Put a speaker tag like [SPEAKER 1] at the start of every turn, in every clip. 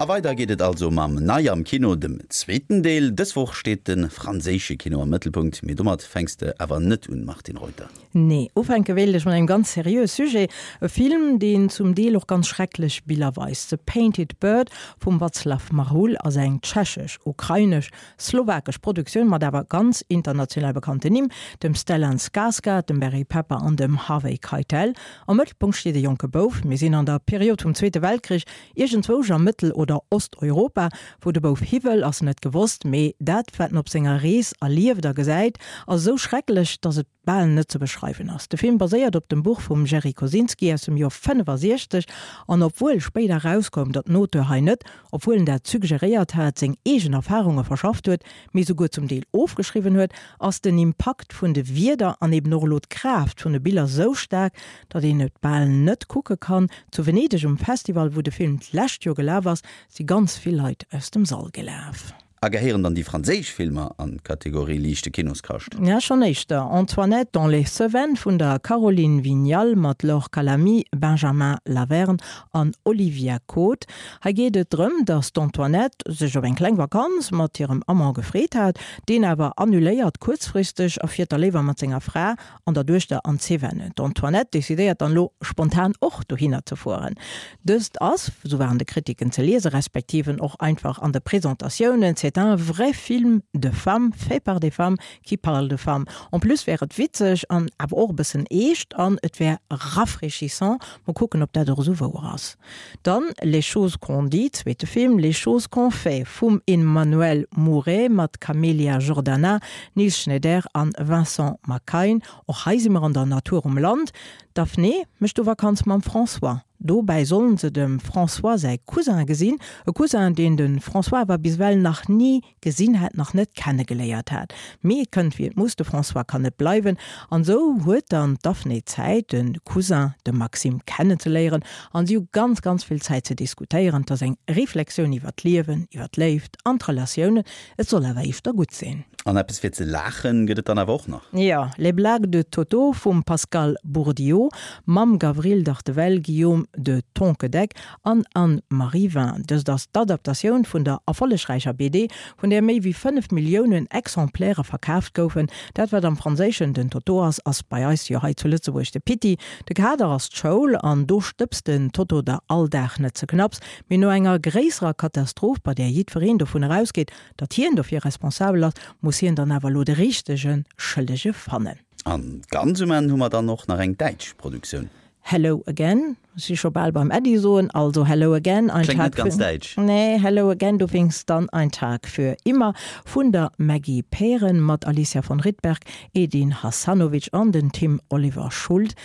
[SPEAKER 1] A weider geet et also mam Nei am Kino, dem zweeten Deel. Dës Woch steet de franséische Kino am Mëttelpunkt, mee domat fänks de awer net un, Martine Reuter.
[SPEAKER 2] Nee, ufänke wéilt ech mat engem ganz seriöe Sujet, e Film, deen zum Deel och ganz schrecklech Biller weist. The Painted Bird vum Václav Marhoul ass eng tschechesch, ukrainesch, slowakesch Produktioun mat awer ganz international bekannten Nimm, dem Stellan Skarsgård, dem Barry Pepper an dem Harvey Keitel. Am Mëttelpunkt steet e jonke Bouf. Mir sinn an der Period vum Zweete Weltkrich, iergendzwousch a Mëttel oder Osteuropa. Wou de Bouf hi wëll, ass net gewosst, mee dat, wat en op senger Rees erlieft a gesäit, ass esou schrecklech, datt et bal net ze beschreiwen ass. De Film baséiert op dem Buch vum Jerry Kosinski aus dem Joer 65 an obwuel spéider erauskoum, datt den Auteur hei net, obwuel en dat suggeréiert hat, seng eegen Erfarunge verschafft huet, mee souguer zum Deel ofgeschriwwen huet, ass den Impakt vun de Wierder an eben och elo d'Kraaft vun de Biller sou staark, datt een et bal net kucke kann. Zu Venedeg um Festival, wou de Film d'lescht Joer gelaf ass, si ganz vill Leit aus dem Sall gelaf.
[SPEAKER 1] A gehéieren dann déi franséisch Filmer an d'Kategorie liichte Kinoskascht?
[SPEAKER 2] Ja, schonn éischter. Antoinette dans les Cévennes vun der Caroline Vignal mat Laure Calamy, Benjamin Lavernhe an Olivia Côte. Hei geet et drëm, datt d'Antoinette sech op eng kleng Vakanz mat hirem Amant gefreet hat, deen awer annuléiert kuerzfristeg a fiert da léiwer mat senger Fra an der Duechter an d'Cévennes. D'Antoinette decidéiert dann elo spontan och dohinner ze fueren. Dëst ass, sou waren de Kritiken ze liesen, respektiven och einfach an de Presentatiounen, c'est un vrai film de femmes fait par des femmes qui parle de femmes. En plus wär et witzeg an awer och e bëssen eescht an et wär rafraîchissant. Mol kucken, ob dat och esou wouer ass. Dann Les choses qu'on dit, zweete Film, Les choses qu'on fait vum Emmanuel Mouret mat Camélia Jordana, Niels Schneider an Vincent Macaigne. Och hei si mer an der Natur um Land. D'Daphné mécht do Vakanz mam François. Dobäi sollen se dem François säi Cousin gesinn, e Cousin, deen de François awer bis ewell nach ni gesinn hat, nach net kennegeléiert hat. Mee et kënnt wéi et muss, de François kann net bleiwen an esou huet dann d'Daphné Zäit de Cousin, de Maxime, kennenzeléieren an si hu ganz, ganz vill Zäit ze diskutéieren. Et ass eng Reflexioun iwwer d'Liewen, iwwer d'Léift an d'Relatiounen. Et soll awer éischter gutt sinn.
[SPEAKER 1] An eppes fir ze laachen gëtt et dann awer och nach.
[SPEAKER 2] Jo, Les blagues de Toto vum Pascal Bourdieu mam Gavril Dartevelle, Guillaume de Tonquedec an Anne-Marie Vin. Dëst ass d'Adaptatioun vun der erfollegräicher BD, vun där méi wéi 5 Milliounen Exemplaire verkaaft goufen. Dat wat am Franséischen den Toto ass, ass bei eis jo hei zu Lëtzebuerg de Pitti. De Kader ass d'Schoul an do stëbst den Toto der all Dag net ze knapps. Mee no enger gréisserer Katastroph, bei där jiddwereen dovun erausgeet, datt hien dofir responsabel ass, muss hien dann awer elo de richtege Schëllege fannen.
[SPEAKER 1] An ganz um Enn hu mer dann och nach eng däitsch Produktioun.
[SPEAKER 2] Hello again, si scho bal beim Äddi soen, also Hello again, ein
[SPEAKER 1] Kléngt net Tag ganz für, däitsch.
[SPEAKER 2] nee, Hello again, du winkst dann ein Tag für immer vun der Maggie Pären mat Alicia von Rittberg, Edin Hasanovic an den Tim Oliver Schuld.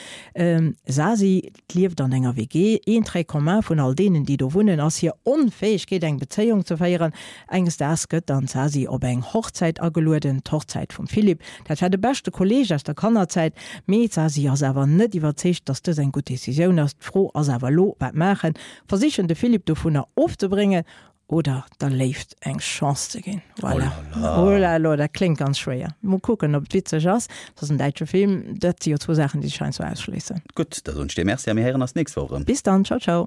[SPEAKER 2] Sasi lieft an enger WG. Een Trait commun vun all deenen, déi do wunnen, ass hir Onfäegkeet eng Bezéiung ze féieren. Enges Daags gëtt dann d'Sasi op eng Hochzäit agelueden, d'Hochzäit vum Philippe. Dat war de beschte Kolleeg aus der Kannerzäit. Mee d'Sasi ass awer net iwwerzeegt, dass dës eng gutt Decisioun ass. D'Fro ass awer elo, wat maachen? Versichen de Philippe dovunner ofzebréngen oder der Léift eng Chance ze ginn? Voilà. Oh la la, dat kléngt ganz schwéier. Mol kucken, ob et witzeg ass. Et ass en däitsche Film. Dat si jo zwou Saachen, déi sech heiansdo ausschléissen.
[SPEAKER 1] Gutt, da soen ech dir Merci a mir héieren eis d'nächst Woch erëm.
[SPEAKER 2] Bis dann. Ciao, ciao.